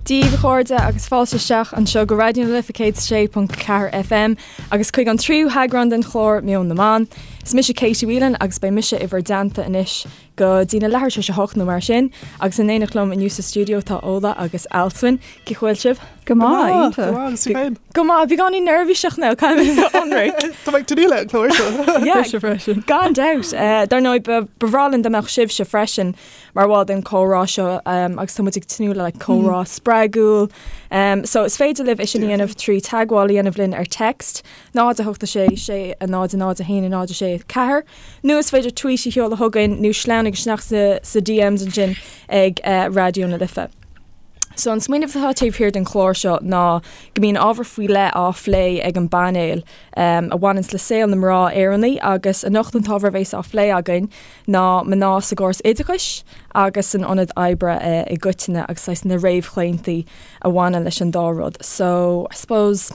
Dia daoibh a chairde agus fáilte isteach anseo go Raidió na Life 106.4 FM agus chuig an tríú heagrán den chlár Meon na mBan. Is mise Katie Whelan agus beidh mise i bhur dteannta anois go dtí na leathuair tar éis a hocht nó mar sin agus in éineacht liom inniu sa stiúideo tá Ola agus Alswyn. Cén chaoi a bhfuil sibh? Go maith, iontach. Go maith, agus tú féin? Go maith, beagáinín neirbhíseach now, caithfidh mé a bheith ionraic. Tá mé ag tnúth le an clár seo. Yeah, Mise freisin. Gan dabht. Dar ndóigh, ba bhreá linn dá mbeadh sibhse freisin mar bhall den chomhrá seo agus tá muid ag tnúth le comhrá spreagúil. So is féidir libh é sin a dhéanamh trí teagmháil a dhéanamh linn ar text 0 8 6 6 0 0 1 0 6 4 Nó is féidir tweet a sheoladh chugainn nó sleamhnaigh isteach sa DMs ansin ag Raidió na Life. So an smaoineamh atá taobh thiar den chlár seo ná go mbíonn ábhar faoi leith á phlé ag an bpainéal a bhaineanns le saol na mná Éireannaí agus anocht an t-ábhar a bhéas á phlé againn ná mná sa gcóras oideachais agus san ionad oibre i gcoitinne agus saghas na réamhchlaontaí a bhaineann leis an dá rud. So I suppose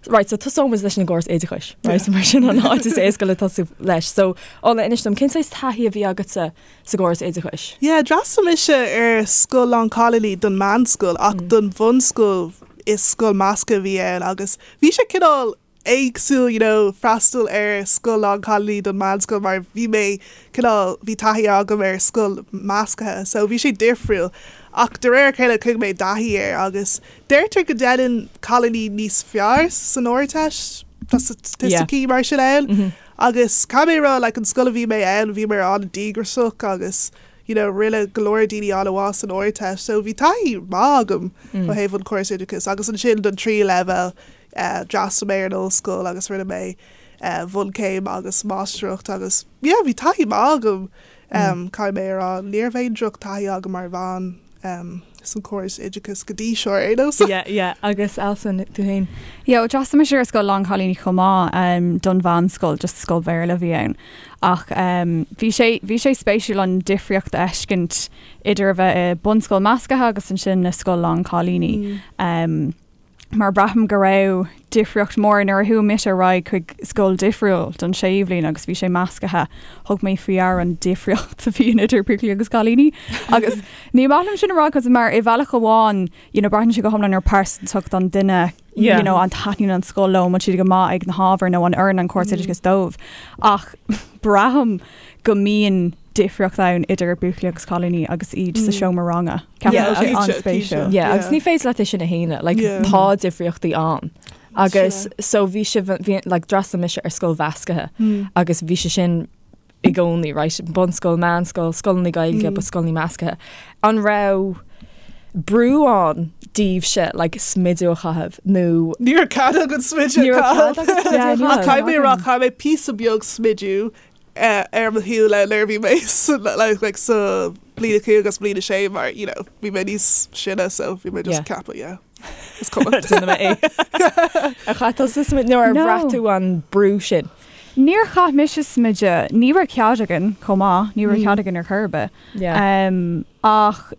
Right, so tosóidh muid leis an gcóras oideachais, right, mar sin an áit is éasca le tosú leis. So, Ola, inis dom, cén saghas taithí a bhí agatsa sa gcóras oideachais? Yeah, d'fhreastail mise ar scoil lánchailíní don meánscoil ach don bhunscoil is scoil measctha a bhí ann agus bhí sé cineál éagsúil you know freastal ar scoil lánchailíní don meánscoil mar bhí mé cineál, bhí taithí agam ar scoil measctha so bhí sé difriúil ach de réir a chéile chuaigh mé i dtaithí air agus Deirtear go ndéanann cailíní níos fearr san Ardteist, tá staitisticí mar sin ann, agus caithfidh mé a rá like an scoil a bhí mé ann bhíomar an-díograiseach agus you know rinne go leor daoine an-mhaith san Ardteist so bhí taithí maith agam ó thaobh an córas oideachais agus ansin don tríú leibhéal d'fhreastail mé ar an ollscoil agus rinne mé bhunchéim agus máistreacht agus yeah bhí taithí maith agam caithfidh mé a rá ní raibh aon droch taithí agam mar bhean. san córas oideachais go dtí seo ar aon nós. Yeah, yeah, agus Alswyn, tú féin? Yeah, well, d'fhreastail mise ar scoil lánchailíní chomh maith um, don mheánscoil, just scoil Bhéarla a bhí ann. Ach um, bhí sé, bhí sé spéisiúil an difríocht a fheiscint idir a bheith i bunscoil measctha agus ansin i scoil lánchailíní. Mm. Um, mar braithim go raibh difríocht mór nuair a chuaigh mise ar aghaidh chuig scoil difriúil don séú bhliain agus bhí sé measctha, thug mé faoi deara an difríocht a bhíonn idir buachaillí agus cailíní. Agus ní maith liom sin a rá cos mar i bhealach amháin you know, braitheann sé go hiomlán ar pearsantacht an duine you know, an taitníonn an scoil leo, an bhfuil siad go maith ag na hábhair nó an oireann an córas oideachais dóibh. Ach braithim go mbíonn difríocht ann idir buachaillí agus cailíní agus iad sa seomra ranga. Ceapaim go bhfuil sé an-spéisiúil. Yeah, agus ní féidir leat é sin a shéanadh, like, tá difríochtaí ann. Agus so bhí sé, bhí, like, d'fhreastail mise ar scoil mheasctha agus bhí sé sin i gcónaí, right, bunscoil, meánscoil, scoileanna Gaeilge, but scoileanna measctha. An raibh brú ann daoibhse, like, smideadh a chaitheamh nó? Ní raibh cead againn smideadh a chaitheamh. Ach caithfidh mé a rá, chaith mé píosa beag smideadh ar mo shúile nuair a bhí mé like sa bliain a cúig agus bliain a sé mar you know bhí mé níos sine so bhí mé just ag ceapadh yeah is cuma. Déanfaidh mé é. Ar chaith tusa smideadh nó ar bhraith tú an brú sin? Níor chaith mise smideadh, ní raibh cead againn chomh maith, ní raibh cead againn ar chor ar bith. Ach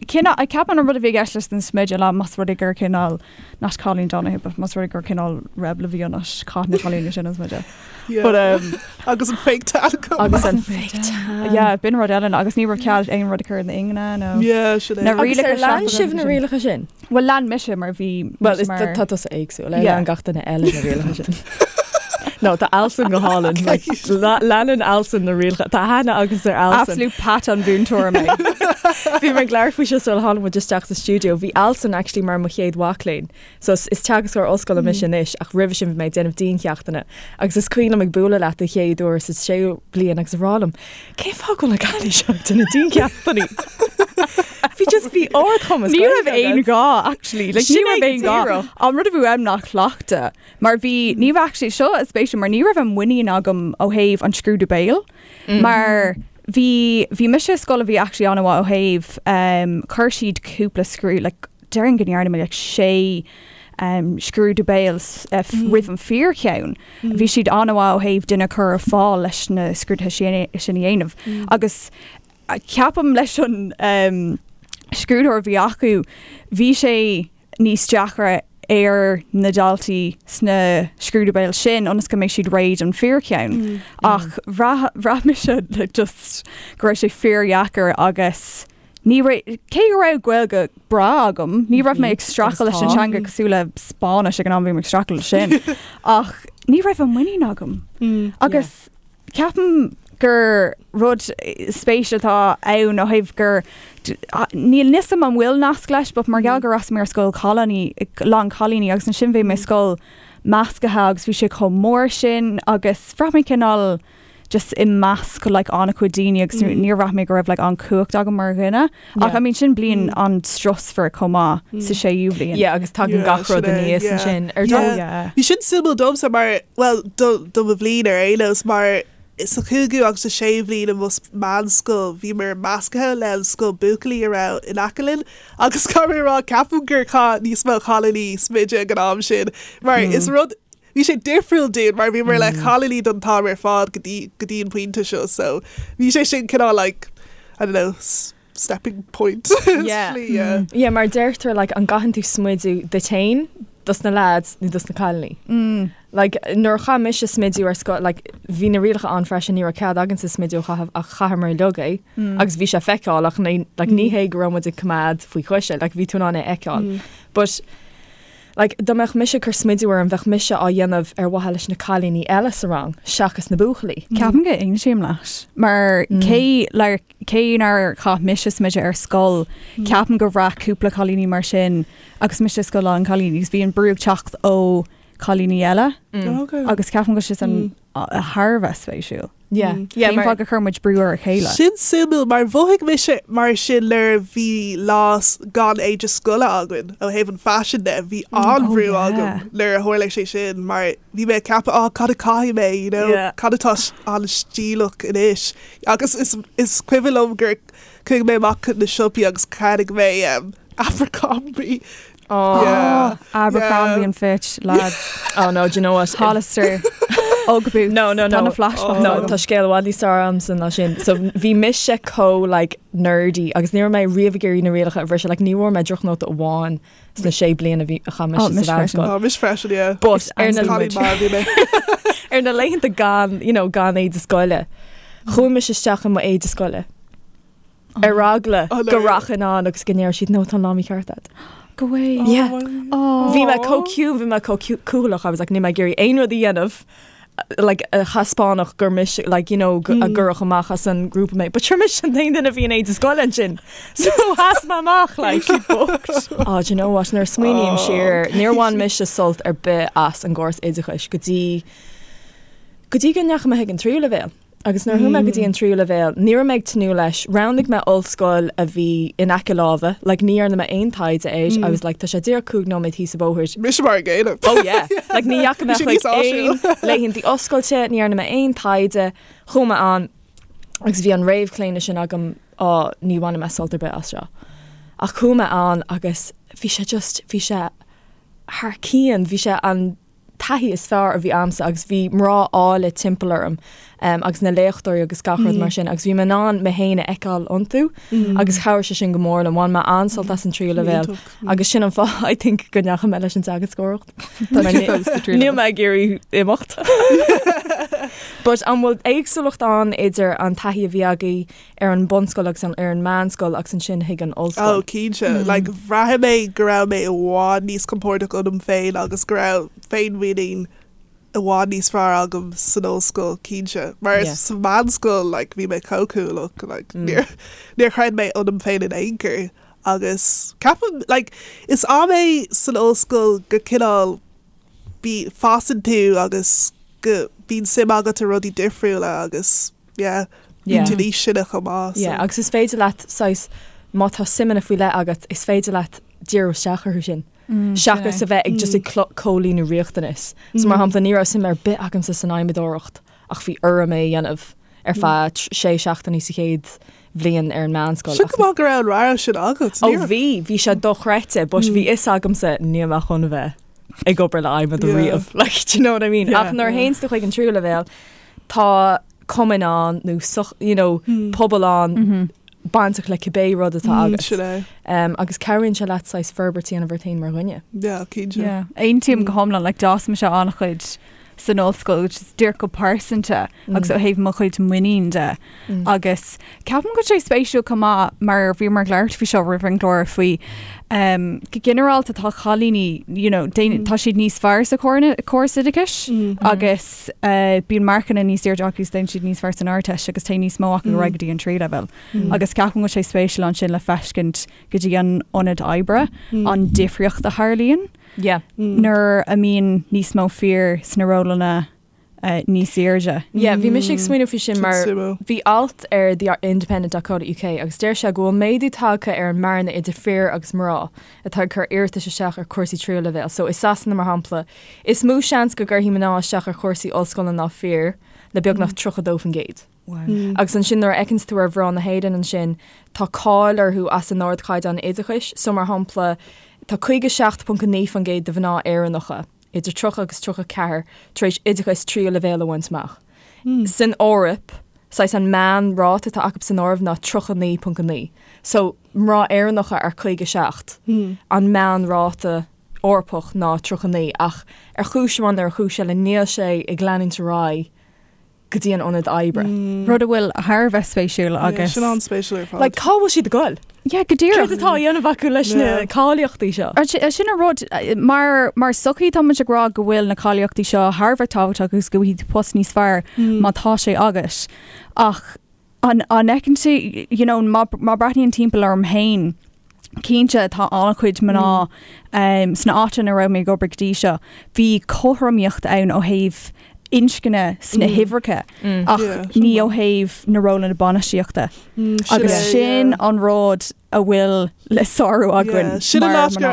cineál, ceapaim an rud a bhí i gceist leis an smideadh ná más rud é gur cineál, not Colleen Donahue, but más rud é gur cineál rebel a bhí ionat, chaith na cailíní sin an smideadh. But, um, Agus an fake tan chomh Agus an fake tan. Yeah, b'in rud eile agus ní raibh cead aon rud a chur in ingne nó. Yeah, sin é. Na Agus ar lean sibh na rialacha sin? Bhuel, lean mise mar bhí Well, is mar... tá tusa éagsúil, ar lean gach duine eile na rialacha sin. No, tá Alswyn go hálainn. Like, leanann Alswyn na rialacha. Tá aithne agamsa ar Alswyn. Absolute Pat an mhúinteoir mé. Bhí mé ag labhairt faoi seo sular tháinig muid isteach sa stiúideo. Bhí Alswyn actually mar mo chéad mhac léinn. So is teagascóir ollscoile mise anois ach roimhe sin bhí mé ag déanamh diancheachtanna. Agus is cuimhin liom ag bualadh leat den chéad uair sa séú bliain agus ag rá liom, cén fáth go bhfuil an cailín seo ag déanamh diancheachtanna? Bhí just bhí ardchumas Ní raibh aon ghá actually. Like, ní raibh aon ghá. An rud a bhí uaim ná cleachtadh. Mar bhí, ní raibh actually, seo is spéisiúil, mar ní raibh an muinín agam ó thaobh an scrúdú béil. Mar bhí, bhí mise i scoil a bhí actually an-mhaith ó thaobh, um, chuir siad cúpla scrúdú, like, déarfainn go ndearna mé like sé um, scrúdú béil uh, roimh an fíorcheann. Bhí siad an-mhaith ó thaobh duine a chur ar fáil leis na scrúduithe sin sin a dhéanamh. Agus ceapaim leis an um, scrúdóir a bhí acu, bhí sé níos deacra ar na daltaí sna scrúdú béil sin ionas go mbeidh siad réidh don fíorcheann. Ach bhraith, bhraith mise like, just go raibh sé fíordheacair agus. Ní raibh, cé go raibh Gaeilge breá agam, ní raibh mé ag streachailt leis an teanga cosúil le Spáinnis ag an am bhí mé ag streachailt leis sin, ach ní raibh an muinín agam. Agus ceapaim gur rud spéise atá ann ó thaobh gur, níl a fhios agam an bhfuil nasc leis, but mar gheall gur fhreastail mé ar scoil cailíní, lán cailíní agus ansin bhí mé i scoil measctha agus bhí sé chomh mór sin agus bhraith mé cineál just i measc like an-chuid daoine agus níor bhraith mé go raibh like an cumhacht agam mar dhuine. Ach I mean sin bliain an-strusmhar chomh maith sa séú bhliain. Yeah agus tagann gach rud aníos ansin ar dóigh. Yeah. Bhí sin suimiúil domsa mar, bhuel do do mo bhliain ar aon nós mar sa chúigiú agus sa séú bhliain i mo meánscoil bhíomar measctha le an scoil buachaillí a raibh in aice linn agus caithfidh mé a rá ceapaim gur chaith níos mó cailíní smideadh ag an am sin mar is rud Bhí sé difriúil dúinn mar bhíomar le cailíní don t-am ar fad go dtí go dtí an pointe seo so bhí sé sin cineál like I don't know stepping point Yeah. slí yeah. Yeah, mar deirtear like an gcaitheann tú smideadh duit féin dos na lads nó dos na cailíní. Like nuair a chaith mise smideadh ar scoil like bhí na rialacha ann freisin ní raibh cead againne smideadh a chaitheamh ach chaitheamar uilig é agus bhí sé feiceálach ní like ní hé go raibh muid ag coimeád faoi chois é like bhí tú in ann é a fheiceáil. But Like, dá mbeadh mise ag cur smidiú orm, bheadh mise á dhéanamh ar mhaithe leis na cailíní eile sa rang, seachas na buachaillí. Ceapaim go n-aontaím leat. Mar cé like cé nár chaith mise smideadh ar scoil, ceapaim gur bhraith cúpla cailíní mar sin agus mise i scoil lán cailíní agus bhí an brú ag teacht ó cailíní eile agus ceapaim go bhfuil sé sin thar a bheith spéisiúil. Yeah. Yeah, Cén fáth go chuir muid brú ar a chéile? Sin suimiúil mar mhothaigh mise mar sin nuair a bhí lá gan éide scoile againn ó thaobh an faisin de, bhí an-bhrú Oh, yeah. agam nuair a tharla sé sin mar bhí mé ag ceapadh oh cad a chaithfidh mé you know Yeah. cad atá an-stíleach anois agus is is cuimhin liom gur chuaigh mé amach chun na siopaí agus cheannaigh mé um, Abercrombie Oh. Yeah. Abercrombie Yeah. and Fitch, lads. Oh no, do you know what? Hollister. Ugg boots. No, no, no. Tá na flashbacks. No, agam. tá scéal i bhfad níos fearr agamsa ná sin. So bhí mise chomh like nerdy agus ní raibh mé riamh ag iarraidh na rialacha a bhriseadh, like ní bhfuair mé drochnóta amháin sna sé bliana a bhí a chaith mise Oh, sa mise freisin. mheánscoil. Oh, mise freisin, yeah. But ar na Cailín maith a bhí mé. ar na laethanta gan, you know, gan éide scoile, chuaigh mise isteach i mo éide scoile. Ar eagla Oh, no. go rachainn ann agus go ndéarfadh siad no tá an lá mícheart agat. Go way. Yeah. Oh. Bhí mé chomh ciúin, bhí mé chomh cúthaileach, I was like níl mé ag iarraidh aon rud a dhéanamh like a thaispeánfadh gur mise like you know a gcuirfeadh amach as an grúpa mé. But sure mise an t-aon duine a bhí in éide scoile ansin. So sheas mé amach like Oh, do you know what? Nuair a smaoiním siar, níor bhain mise sult ar bith as an gcóras oideachais go dtí go dtí go ndeachaigh mé chuig an tríú leibhéal. Agus nuair a chuaigh mé go dtí an tríú leibhéal, ní raibh mé ag tnúth leis. Roghnaigh mé ollscoil a bhí in aice láimhe, like ní dhearna mé aon taighde air, I was like tá sé díreach 5 nóiméad thíos an bóthar. Mise mar an gcéanna. Oh yeah! Like ní dheachaigh mé Bhí sé chuig níos áisiúil. aon laethanta oscailte, ní dhearna mé aon taighde, chuaigh mé ann agus bhí an réamhchlaonadh sin agam, á ní bhainfidh mé sult ar bith as seo. Ach chuaigh mé ann agus bhí sé just, bhí sé thar cionn, bhí sé an taithí is fearr a bhí a'msa agus bhí mná áille timpeall orm agus na léachtóirí agus gach rud mar sin agus bhí mé in ann mé féin a fheiceáil iontu agus chabhraigh sé sin go mór liom. Bhain mé an-sult as an tríú leibhéal agus sin an fáth I think go ndeachaigh mé leis an teagascóireacht. Níl mé ag iarraidh imeacht. But an bhfuil éagsúlacht ann idir an taithí a bhí agaibh ar an bunscoil agus ar an meánscoil agus ansin chuig an ollscoil. Oh, cinnte. Like, bhraith mé go raibh mé i bhfad níos compordach ionam féin agus go raibh féinmhuinín i bhfad níos fearr agam san ollscoil, cinnte. Mar yeah. sa mheánscoil, like, bhí mé chomh cúthalach, like, níor, níor chreid mé ionam féin in aon chor. Agus ceapaim, like, is am é san ollscoil go cineál bí, fásann tú agus go bíonn suim agat i rudaí difriúla agus yeah, bíonn tú níos sine chomh maith. Yeah, agus is féidir leat saghas, má tá suimeanna faoi leith agat, is féidir leat díriú isteach orthu sin. Seachas a bheith ag just ag comhlíonadh riachtanas. So mar shampla, ní raibh suim ar bith agamsa san adhmadóireacht ach bhí orm é a dhéanamh ar feadh sé seachtainí sa chéad bhliain ar an meánscoil. Sin go maith go raibh an rogha sin agat. Ó bhí, bhí sé dochreidte, but bhí fhios agamsa níl mé chun a bheith ag obair le adhmad riamh. Like, do you know what I mean? Ach nuair a théann tú chuig an tríú leibhéal, tá cumainn ann nó soch, you know, pobal ann bainteach le cibé rud atá agat. Sin é. Um, agus cabhraíonn sé leat saghas forbairt a dhéanamh ort féin mar dhuine. Yeah, cinnte. Yeah. Aontaím go hiomlán, like d'fhás mise an-chuid. san ollscoil, which is díreach go pearsanta agus ó thaobh mo chuid muinín de. Agus ceapaim go bhfuil sé spéisiúil chomh maith mar bhíomar ag labhairt faoi seo roimh an gclár faoi go ginearálta tá cailíní you know, tá siad níos fearr sa chóras oideachais agus bíonn marcanna níos airde acu agus déanann siad níos fearr san Ardteist agus téann níos mó acu ar aghaidh go dtí an tríú leibhéal. Agus ceapaim go bhfuil sé spéisiúil ansin le feiscint go dtí an ionad oibre an difríocht a tharlaíonn nuair a mbíonn níos mó fir sna rólanna níos airde. Yeah, bhí mise ag smaoineamh faoi sin mar bhí alt ar The Independent.co.uk agus deir sé go bhfuil méadú tagtha ar an mbearna idir fir agus mná atá ag cur iarratais isteach ar chúrsaí tríú leibhéal. So i Sasana mar shampla, is mó seans go gcuirfidh mná isteach ar chúrsaí ollscoile ná fir le beagnach 32%. Agus ansin nuair a fheiceanns tú ar mhná na hÉireann ansin, tá cáil orthu as a n-ardchaighdeán oideachais. So mar shampla, tá 57.9% de mhná Éireannacha idir 30 agus 34 tar éis oideachas tríú leibhéal a bhaint amach. San Eoraip, saghas an meán-ráta atá acu san áireamh ná 39.9. So mná Éireannacha ar 57, an meán-ráta Eorpach ná 39 ach ar chúis amháin nó ar chúis eile níl sé ag leanúint ar aghaidh go dtí an ionad oibre. Rud a bhfuil thar a bheith spéisiúil agus. Sin an-spéisiúil ar fad. Like, cá bhfuil siad ag goil? Yeah, go díreach. Céard atá á dhéanamh acu leis na cáilíochtaí seo? Sin an rud, mar, mar sochaí tá muid ag rá go bhfuil na cáilíochtaí seo thar a bheith tábhachtach agus go bhfaighidh tú post níos fearr má tá sé agat. Ach an, an fheiceann tú, you know, má, má breathnaím timpeall orm féin, Cinnte, tá an-chuid mná sna áiteanna a raibh mé ag obair go dtí seo. Bhí cothromaíocht ann ó thaobh inscne sna huimhreacha ach ní ó thaobh na rólanna bainistíochta. Agus sin an rud a bhfuil le sárú againn Sin an áit gur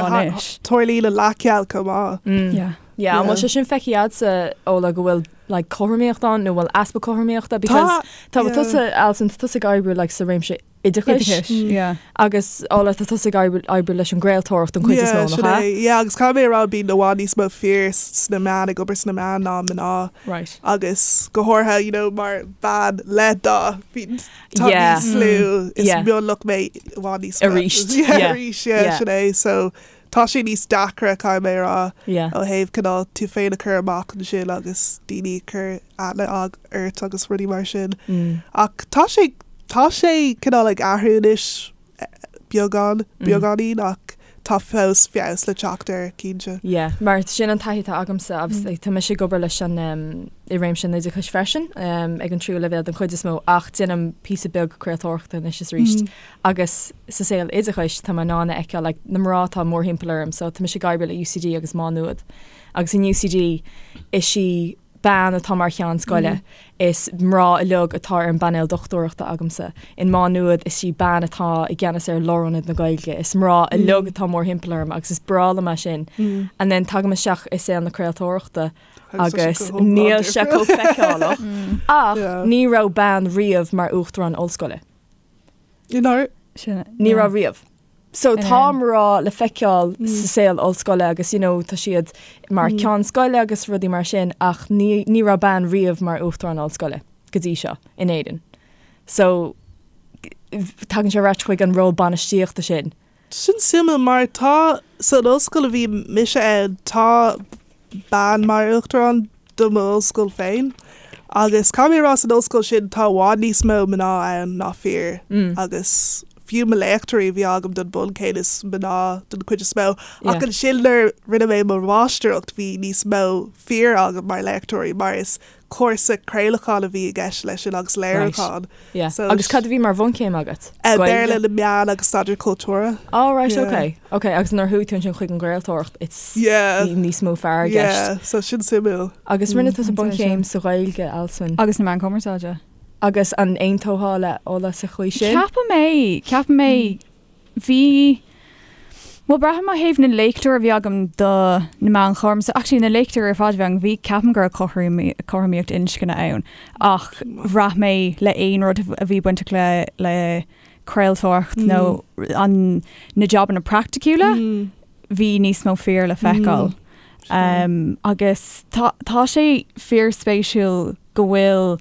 tarlaíonn an leathcheal chomh maith. Yeah, an bhfuil sé sin feicthe agatsa, Ola, go bhfuil like cothromaíocht ann nó bhfuil easpa cothromaíochta because tá tusa Alison, tá tusa ag oibriú like sa réimse oideachais. Oideachais, yeah. Agus Ola, tá tusa ag oibriú leis an gcraoltóireacht don chuid is mó, nach ea? Yeah, agus caithfidh mé a rá bíonn i bhfad níos mó fir sna meáin, ag obair sna meáin ná mná. Right. Agus go háirithe, you know, mar bhean le dath, bíonn, tá níos lú, is mionlach mé i bhfad níos mó. Arís. Yeah, arís, yeah, sin é. So, tá sé níos deacra, caithfidh mé a rá, ó thaobh cineál tú féin a chur amach ansin agus daoine a chur aithne ort agus rudaí mar sin. Ach tá sé, tá sé cineál ag athrú anois beagán, beagáinín ach tá fós feabhas le teacht air, cinnte. Yeah, mar sin an taithí atá agamsa agus tá mise ag obair leis an i réimse an oideachais freisin ag an tríú leibhéal den chuid is mó ach déanaim píosa beag craoltóireachta anois is arís agus sa saol oideachais tá mé in ann a fheiceáil like na mná atá mórthimpeall orm so tá mise ag oibriú le UCD agus Má Nuad agus in UCD is í bean atá mar cheann scoile. Is mná uilig atá ar an bpainéal dochtúireachta agamsa. In Má Nuad is í bean atá i gceannas ar Lárionad na Gaeilge. Is mná uilig atá mórthimpeall orm agus is breá liom é sin. And then tagaim isteach i saol na craoltóireachta agus níl sé chomh feiceálach. Ach ní raibh bean riamh mar uachtarán ollscoile. Ní raibh riamh. So tá mná le feiceáil sa saol ollscoile agus you know tá siad mar ceann scoile agus rudaí mar sin ach ní ní raibh bean riamh mar uachtarán ollscoile go dtí seo in Éirinn. So tagann sé ar ais chuig an ról bainistíochta sin. Sin suimiúil mar tá san ollscoil a bhí mise ann tá bean mar uachtarán do m'ollscoil féin agus caithfidh mé a rá san ollscoil sin tá i bhfad níos mó mná ann ná fir agus fiú mo léachtóirí a bhí agam don bhunchéim is mná den chuid is mó ach ansin nuair rinne mé mo mháistreacht bhí níos mó fir agam mar léachtóirí mar is cúrsa craolacháin a bhí i gceist leis sin agus léiriúchán. Yeah. So Agus cad a bhí mar bhunchéim agat? Eh, Béarla na meán agus staidéar cultúrtha. Oh right, Yeah. okay. Okay, agus nuair a chuaigh tú ansin chuig an gcraoltóireacht, it's Yeah. bhí níos mó fear i gceist. Yeah, so sin suimiúil. Agus rinne tusa bunchéim sa Ghaeilge, Alswyn. Agus na meáin chumarsáide. Agus an aontófá le Ola sa chaoi sin? Ceapaim é, ceapaim é. Bhí, bhuel braithim ó thaobh na léachtóirí a bhí agam do na meáin chumarsáide, actually na léachtóirí ar fad a bhí agam, bhí, ceapaim go raibh cothromaíocht inscne ann ach bhraith mé le aon rud a bhí bainteach le le craoltóireacht nó an na jabanna praiticiúla, bhí níos mó fir le feiceáil. Agus tá tá sé fíorspéisiúil go bhfuil,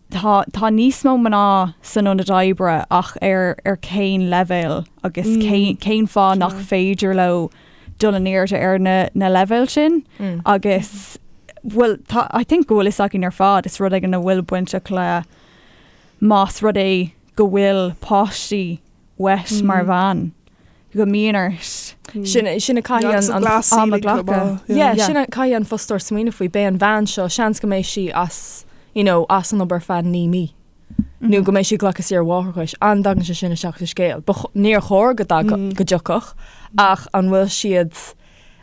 Tá, tá níos mó mná san ionad oibre ach ar, ar cén leibhéal agus cén, cén fáth nach féidir leo dul in airde ar na, na leibhéil sin agus. Bhuel, tá, I think go bhfuil fhios againn ar fad, is rud éigin a bhfuil bainteach le más rud é go bhfuil páistí uait mar bhean, go mbíonn ort. Sin, sin a caithfidh an, an, am a ghlacadh. Yeah, sin a caithfidh an fostóir smaoineamh faoi. Beidh an bhean seo, seans go mbeidh sí as, you know, as an obair feadh 9 mí. Nó go mbeidh sí ag glacadh saoire mháithreachais. An dtagann sé sin isteach sa scéal? Ba, níor chóir go dtagadh, go dtiocfadh, ach an bhfuil siad,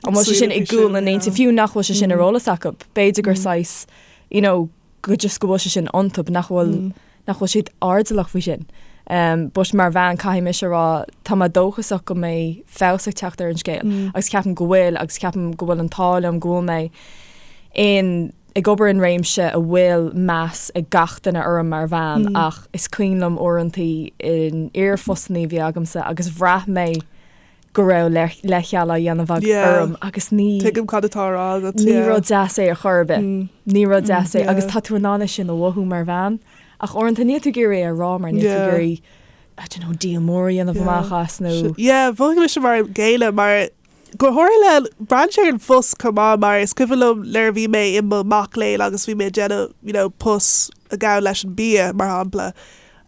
An bhfuil sé sin i gcúl na n-intinn, fiú nach bhfuil sé sin ar eolas acu, b'fhéidir gur saghas, you know, go just go bhfuil sé sin iontu, nach bhfuil, nach bhfuil siad airdeallach faoi sin. Um, but mar bhean caithfidh mise a rá, tá mé dóchasach go mbeidh feabhas ag teacht ar an scéal agus ceapaim go bhfuil agus ceapaim go bhfuil an t-ádh liom go bhfuil mé in ag obair in réimse a bhfuil meas ag gach duine orm mar bhean ach is cuimhin liom uaireantaí in iarphostanna a bhí agamsa agus bhraith mé go raibh leithcheal á dhéanamh orm agus ní Tuigim cad atá á rá agat. Ní rud deas é ar chor ar bith. Ní rud deas é agus tá tú in ann é sin a mhothú mar bhean ach uaireanta níl tú ag iarraidh é a rá mar níl tú ag iarraidh I don't know, díol mór a dhéanamh amach as nó. Yeah, mhothaigh mise mar an gcéanna mar go háirithe le braitheann sé ar an phost chomh maith mar is cuimhin liom nuair a bhí mé i mo mac léinn agus bhí mé ag déanamh you know, post a ghabhann leis an bia mar shampla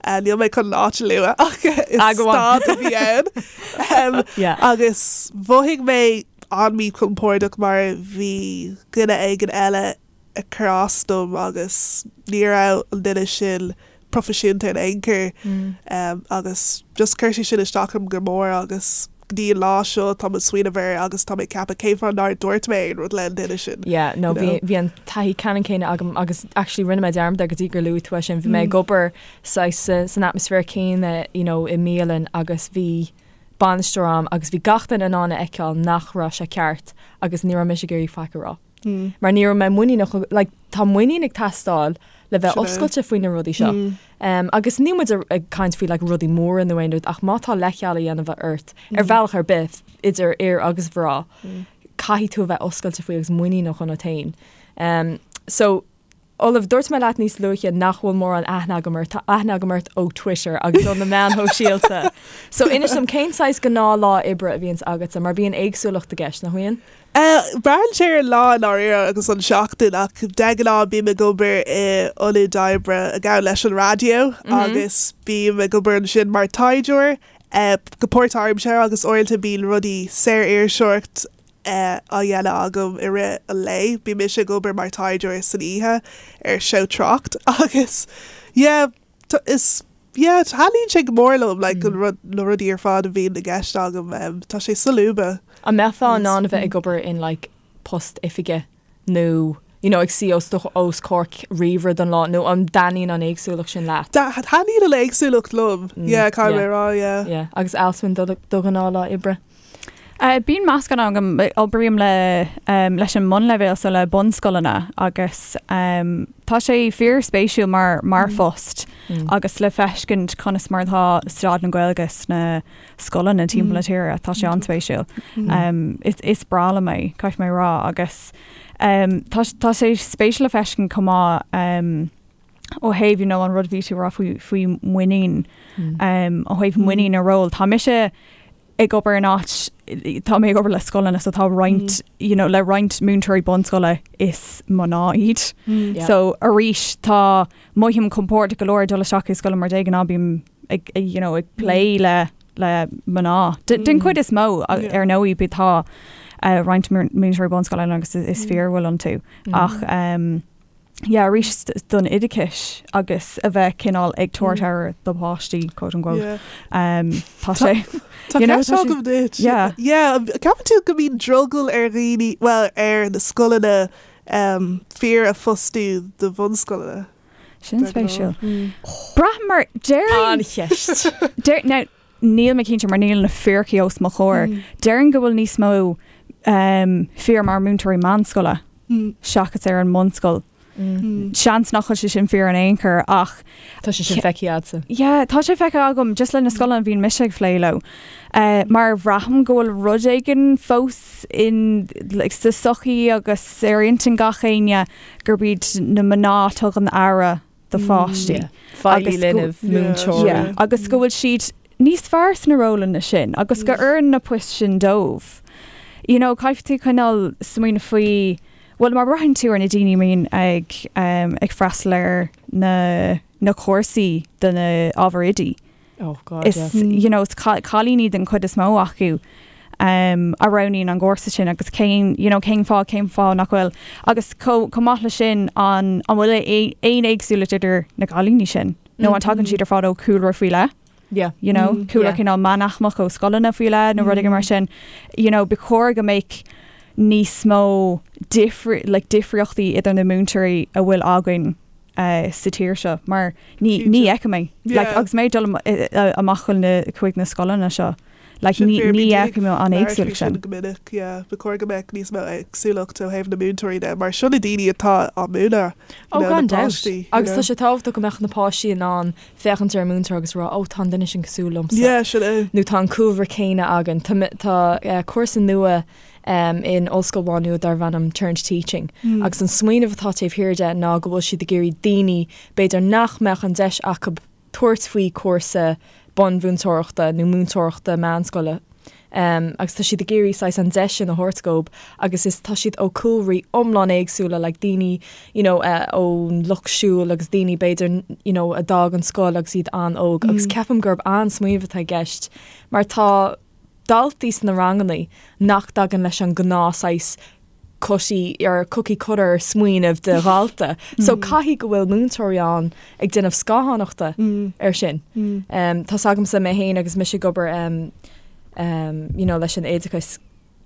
Níl mé chun an áit a lua ach is stad a bhí ann. Agus mhothaigh mé an-mhíchompordach mar bhí duine éigin eile ag cur as dom agus ní raibh an duine sin proifisiúnta in aon chor agus just chuir sé sin isteach orm go mór agus go dtí an lá seo táim ag smaoineamh air agus tá mé ag ceapadh cén fáth nár dúirt mé aon rud le an duine sin. Yeah, no, bhí, bhí an taithí ceannann céanna agam agus actually rinne mé dearmad air go dtí gur luaigh tú é sin. Bhí mé ag obair saghas san atmaisféar céanna, you know, i mbialann agus bhí bainisteoir ann agus bhí gach duine in ann a fheiceáil nach raibh sé ceart agus ní raibh mise ag iarraidh faic a rá. Mar ní raibh mé muiníneach, like, tá muinín ag teastáil le bheith oscailte faoi na rudaí seo. Agus níl muid ag caint faoi like, rudaí móra nó aon rud ach má tá leithcheal á dhéanamh ort ar bhealach ar bith idir fhir agus mhná, caithfidh tú a bheith oscailte faoi agus muiníneach ionat féin. So, Olive, dúirt mé leat níos luaithe nach bhfuil mórán aithne agam ort, tá aithne agam ort ó Twitter agus ó na meáin shóisialta. So inis dom cén saghas gnáthlá oibre a bhíonns agatsa, mar bíonn éagsúlacht i gceist, nach mbíonn? Braitheann sé ar an lá i ndáiríre agus an seachtain ach de ghnáth bím ag obair i ionad oibre a ghabhann leis an raidió agus bím ag obair ansin mar taighdeoir go páirtaimseartha agus uaireanta bíonn rudaí saoririseoireacht á dhéanamh agam i rith an lae. Bíonn mise ag obair mar taighdeoir san oíche ar seó Trácht agus yeah is yeah taitníonn sé go mór liom like an rud na rudaí ar fad a bhíonn i gceist agam tá sé solúbtha. An mbeifeá in ann a bheith ag obair in like post oifige nó you know ag suí os do os comhair ríomhaire don lá nó an dtaitníonn an éagsúlacht sin leat? Taitníonn an éagsúlacht liom yeah caithfidh mé a rá yeah. Yeah agus Alswyn do do ghnáthlá oibre? Bíonn meascán agam, oibrím le leis an mbunleibhéal so le bunscoileanna agus tá sé fíorspéisiúil mar mar phost agus le feiscint conas mar atá staid na Gaeilge sna scoileanna timpeall na tíre, tá sé an-spéisiúil. Is is breá liom é, caithfidh mé a rá agus tá tá sé spéisiúil le feiscint chomh maith ó thaobh you know an rud a bhí tú a rá faoi faoi muinín ó thaobh muinín a ról. Tá mise ag obair in áit, tá mé ag obair le scoileanna so tá roinnt, you know, le roinnt múinteoirí bunscoile is mná iad. So arís tá, mothaím compordach go leor ag dul isteach i scoil mar de ghnáth bím ag, you know, ag plé le le mná. Den chuid is mó ar ndóigh bí tá roinnt múinteoirí bunscoile agus is fir a bhfuil iontu ach um, yeah, arís don oideachais agus a bheith cineál ag tabhairt aire do pháistí, quote unquote. Yeah. Um, tá sé. Tá you know, ceist agam duit. Yeah. Yeah, ceapann tú go mbíonn drogall ar dhaoine, well, ar na scoileanna um, fir a phostú do bhunscoileanna? Sin spéisiúil. Braithim mar déarfainn An-cheist. Deir, now, níl mé cinnte mar níl na fíricí os mo chomhair. Déarfainn go bhfuil níos mó um, fir mar múinteoirí meánscoile seachas ar an mbunscoil. Seans nach bhfuil sé sin fíor in aon chor ach Tá sé sin feicthe agatsa. Yeah, tá sé feicthe agam just le na scoileanna a bhíonn mise ag plé leo. Uh, mar bhraithim go bhfuil rud éigin fós in, like, sa sochaí agus ar intinn gach éinne gurb iad na mná a tugann aire do pháistí. Feighlí linbh, múinteoirí. Agus go bhfuil siad níos fearr sna rólanna sin agus go oireann na poist sin dóibh. You know, caithfidh tú coinneáil smaoineamh faoi, Bhuel, má bhraitheann tú ar na daoine a mbíonn ag ag freastal ar na na cúrsaí do na ábhair oidí, Oh God, is yeah. you know, is cailíní den chuid is mó acu um, a roghnaíonn an gcúrsa sin agus cén you know, cén fáth cén fáth nach bhfuil agus chomh maith leis sin an an bhfuil aon éagsúlacht idir na cailíní sin nó an tagann siad ar fad ó chúlra faoi leith? Yeah. You know, mm, cúlra yeah. cineál meánaicmeach ó scoileanna faoi leith nó rud éigin mar mm. sin. You know, ba chóir go mbeadh níos mó difri like, difríochtaí idir na múinteoirí a bhfuil againn uh, sa tír seo mar ní ní fheicim é yeah. like, agus mé dul amach chun na chuig na scoileanna seo. Like, ní ní fheicim an éagsúlacht sin. Go minic, yeah. Ba chóir go mbeadh níos mó éagsúlacht ó thaobh na múinteoirí de, mar seo na daoine atá á múineadh. Ó gan dabht. Agus tá sé tábhachtach go mbeadh na páistí in ann féachaint ar an múinteoir agus rá, 'Ó, tá an duine sin cosúil liomsa. Yeah, sin é. Nó tá an cúlra céanna againn. Tá, tá cúrsa nua in Ollscoil Mhá Nuad darb ainm Turn to Teaching agus an smaoineamh atá taobh thiar de ná go bhfuil siad ag iarraidh daoine, b'fhéidir nach mbeadh an deis acu tabhairt faoi chúrsa bunmhúinteoireachta nó múinteoireachta meánscoile, agus tá siad ag iarraidh saghas an deis sin a thabhairt dhóibh agus is tá siad ó cúlraí iomlán éagsúla like daoine you know ón lucht siúil agus daoine b'fhéidir you know a d'fhág an scoil agus iad an-óg agus ceapaim gurb an-smaoineamh atá i gceist mar tá daltaí sna ranganna nach dtagann leis an gnáth saghas cookie or cookie cutter smaoineamh de dhalta. So caithfidh go bhfuil múinteoirí ann ag déanamh scáthánachta ar sin. Tá's agamsa mé féin agus mise ag obair you know leis an oideachas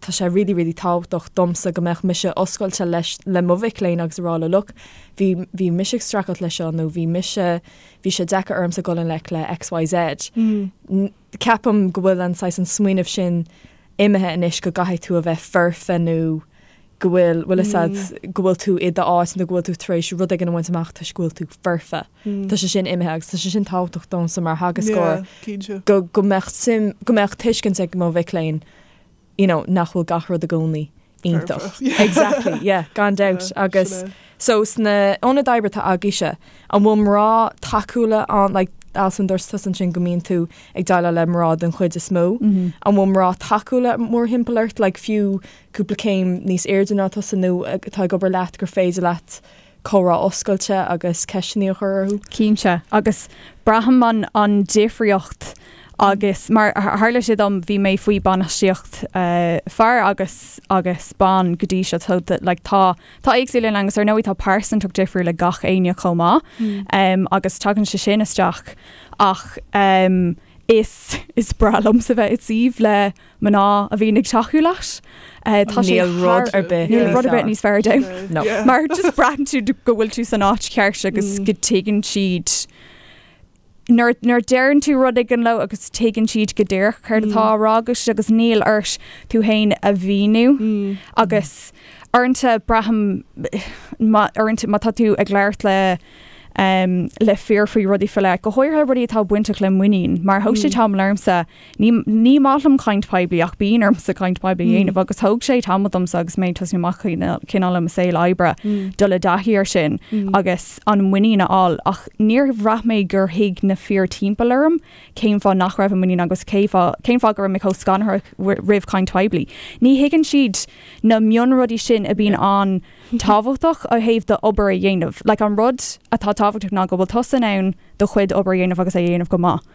tá sé really really tábhachtach domsa go mbeadh mise oscailte leis le mo mhic léinn agus a rá leo look bhí bhí mise ag streachailt leis seo nó bhí mise bhí sé deacair ormsa dul i ngleic le XYZ. Ceapaim go bhfuil an saghas an smaoineamh sin imithe anois go gcaithfidh tú a bheith foirfe nó go bhfuil, bhfuil fhios a'd, go bhfuil tú i d'áit nó go bhfuil tú tar éis rud éigin a bhaint amach toisc go bhfuil tú foirfe. Tá sé sin imithe agus tá sé sin tábhachtach domsa mar theagascóir go, go mbeadh suim, go mbeadh tuiscint ag mo mhic léinn you know, nach bhfuil gach rud i gcónaí iontach. Exactly, yeah, gan dabht. Agus so sna ionaid oibre atá agaibhse, an bhfuil mná tacúla ann, like, Alison, dúirt tusa ansin go mbíonn tú ag déileáil le mná den chuid is mó. An bhfuil mná tacúla mórthimpeall ort, like, fiú cúpla céim níos airde ná tusa nó atá ag obair leat gur féidir leat comhrá oscailte agus ceisteanna a chur orthu? Cinnte, agus braithim an an difríocht agus mar tharla sé dom bhí mé faoi bainistíocht fear agus agus ban go dtí seo so like tá tá éagsúlacht ann agus ar ndóigh tá pearsantacht difriúil ag gach éinne chomh maith um, agus tagann sé sin isteach ach um, is is breá liomsa bheith i suíomh le mná a bhíonn ag tacú leat. Tá sé Níl rud ar bith Níl rud ar bith níos fearr dom. No. Mar just braitheann tú go bhfuil tú san áit cheart agus go dtuigeann siad nuair nuair deireann tú rud éigin leo agus tuigeann siad go díreach céard atá á rá agat agus níl ort tú féin a mhíniú agus uaireanta braithim má uaireanta má tá tú ag labhairt le um, le fir faoi rudaí faoi leith, go háirithe rudaí atá bainteach le muinín, mar thóg sé tamall ormsa Ní ní maith liom caint poiblí ach bíonn ormsa caint poiblí a dhéanamh agus thóg sé tamall domsa agus mé ag tosnú amach cineál i mo saol oibre dul i dtaithí ar sin agus an muinín a fháil ach níor bhraith mé gur thuig na fir timpeall orm cén fáth nach raibh an muinín agus cé fáth cén fáth go raibh mé chomh scanraitheach roimh chaint poiblí. Ní thuigeann siad na mionrudaí sin a bhíonn an-tábhachtach ó thaobh d'obair a dhéanamh. Like an rud atá tábhachtach ná go bhfuil tusa in ann do chuid obair a dhéanamh agus é a dhéanamh go maith.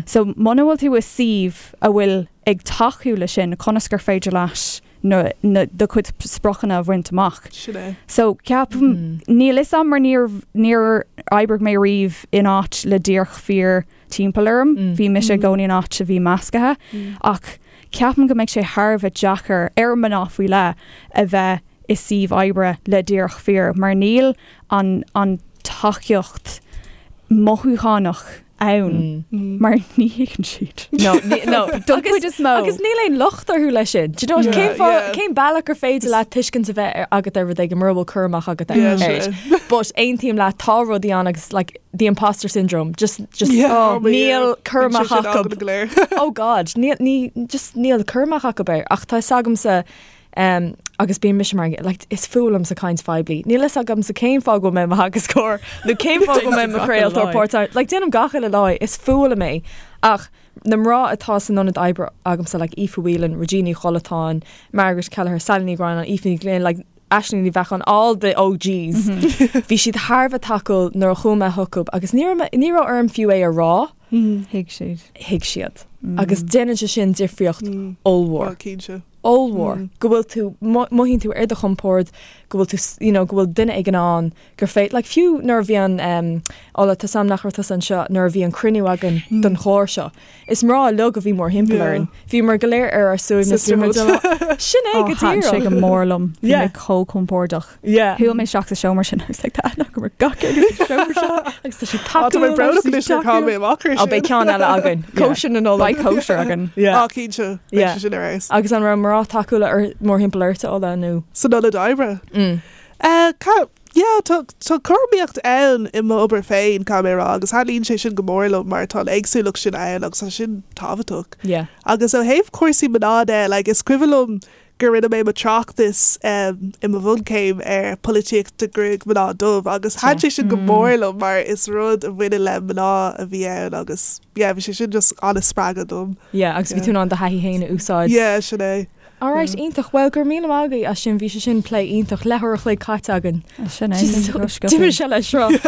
So muna bhfuil tú i suíomh a bhfuil ag tacú le sin, conas gur féidir leat na, na, do chuid spriocanna a bhaint amach? Sin é. So ceapaim, níl fhios a'm mar níor, níor oibrigh mé riamh in áit le díreach fir timpeall orm, bhí mise i gcónaí in áit a bhí meascaithe, ach ceapaim go mbeidh sé thar a bheith deacair ar mná faoi leith a bheith i suíomh oibre le díreach fir mar níl an, an tacaíocht mothúchánach ann mar ní thuigeann siad. No, no. Don chuid is mó. Agus níl aon locht orthu leis sin. Do you know, cén fáth, cén bealach gur féidir leat tuiscint a bheith agat ar rud éigin mura bhfuil cur amach agat air. But aontaím leat, tá rudaí ann agus like the imposter syndrome, just, just oh, níl cur amach acu. Oh God, níl, ní, just níl cur amach acu air. Ach tá fhios agamsa Um, agus bíonn mise mar, like, is fuath liomsa caint phoiblí. Níl fhios agamsa cén fáth go bhfuil mé i mo theagascóir nó cén fáth go bhfuil mé i mo chraoltóir páirt like, déanaim gach uile lá é, is fuath liom é. Ach na mná atá san ionad oibre agamsa, like Aoife Whelan, Regina Ní Chollatáin, Margaret Kelleher, Sally Ní Ghráinne, Aoife Ní Ghlinn, like, Aisling Ní Bheacháin, all the OGs, bhí siad thar a bheith tacúil nuair a chuaigh mé chucu agus ní raibh ní raibh orm fiú é a rá. Thuig siad. Thuig siad. Agus déanann sé sin difríocht ollmhór. Ó, cinnte. Ollmhór. Go bhfuil tú, mothaíonn tú ar do chompord, go bhfuil tú, you know, go bhfuil duine éigin ann gur féidir, like fiú nuair a bhí an, um, Ola, tá a fhios agam nach raibh tusa anseo nuair a bhí an cruinniú againn don chlár seo. Is mná uilig a bhí mórthimpeall orainn. Bhíomar go léir ar ár suaimhneas. Sisterhood. Sin é go Thaitin sé díreach. go mór liom. Bhí Yeah. mé chomh compordach. Yeah. Shiúil mé isteach sa seomra sin agus like tá aithne agam ar gach éinne sa seomra seo. Agus tá siad Tá mé tacúil, brónach tá anois siad gur chaill mé tacúil. amach ar Ó, beidh sin. ceann eile againn. Cóisir na Nollag. Beidh cóisir againn. Yeah. Á, cinnte. Beidh Yeah. sé sin ar fheabhas. Agus an raibh mná tacúla ar mórthimpeall ort, Ola, nó? San ionad oibre. Mm. Eh, ca- Yeah, tá tá cothromaíocht ann i m'obair féin, caithfidh mé a rá, agus thaitníonn sé sin go mór liom mar tá an éagsúlacht sin ann agus tá sin tábhachtach. Yeah. Agus ó thaobh cúrsaí mná de, like, is cuimhin liom gur rinne mé mo tráchtas um, i mo bhunchéim ar polaitíocht de ghruaig mná dubh agus thaitin sé sin go mór liom mar is rud a bhaineann le mná a bhí ann agus yeah, bhí sé sin just an-spreagadh dom. Yeah, agus bhí Yeah. tú in ann do thaithí féin a úsáid. Yeah, sin é. Alright, iontach. Bhuel, go raibh míle maith agaibh as sin. Bhí sé sin plé iontach. Leathuair a chloig caite againn. Sin é. D'imigh sé le sruth.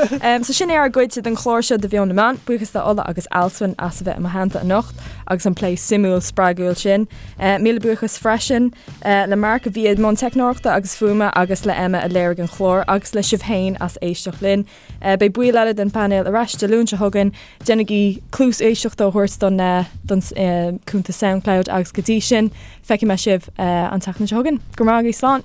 So sin é ár gcuid den chlár seo de Mheon na Meán. Buíochas do Ola agus Alswyn as a bheith i mo theannta anocht agus an plé suimiúil spreagúil sin. Míle buíochas freisin le Mark a bhí i mbun teicneoireachta agus fuaime agus le Emma a léirigh an clár agus le sibh féin as éisteacht linn. Beidh baill eile den phainéal ar ais Dé Luain seo chugainn. Déanaigí cluas éisteachta a thabhairt don don cuntas Soundcloud agus go dtí sin, feicfidh mé sibh an tseachtain seo chugainn. Go raibh maith agaibh, slán!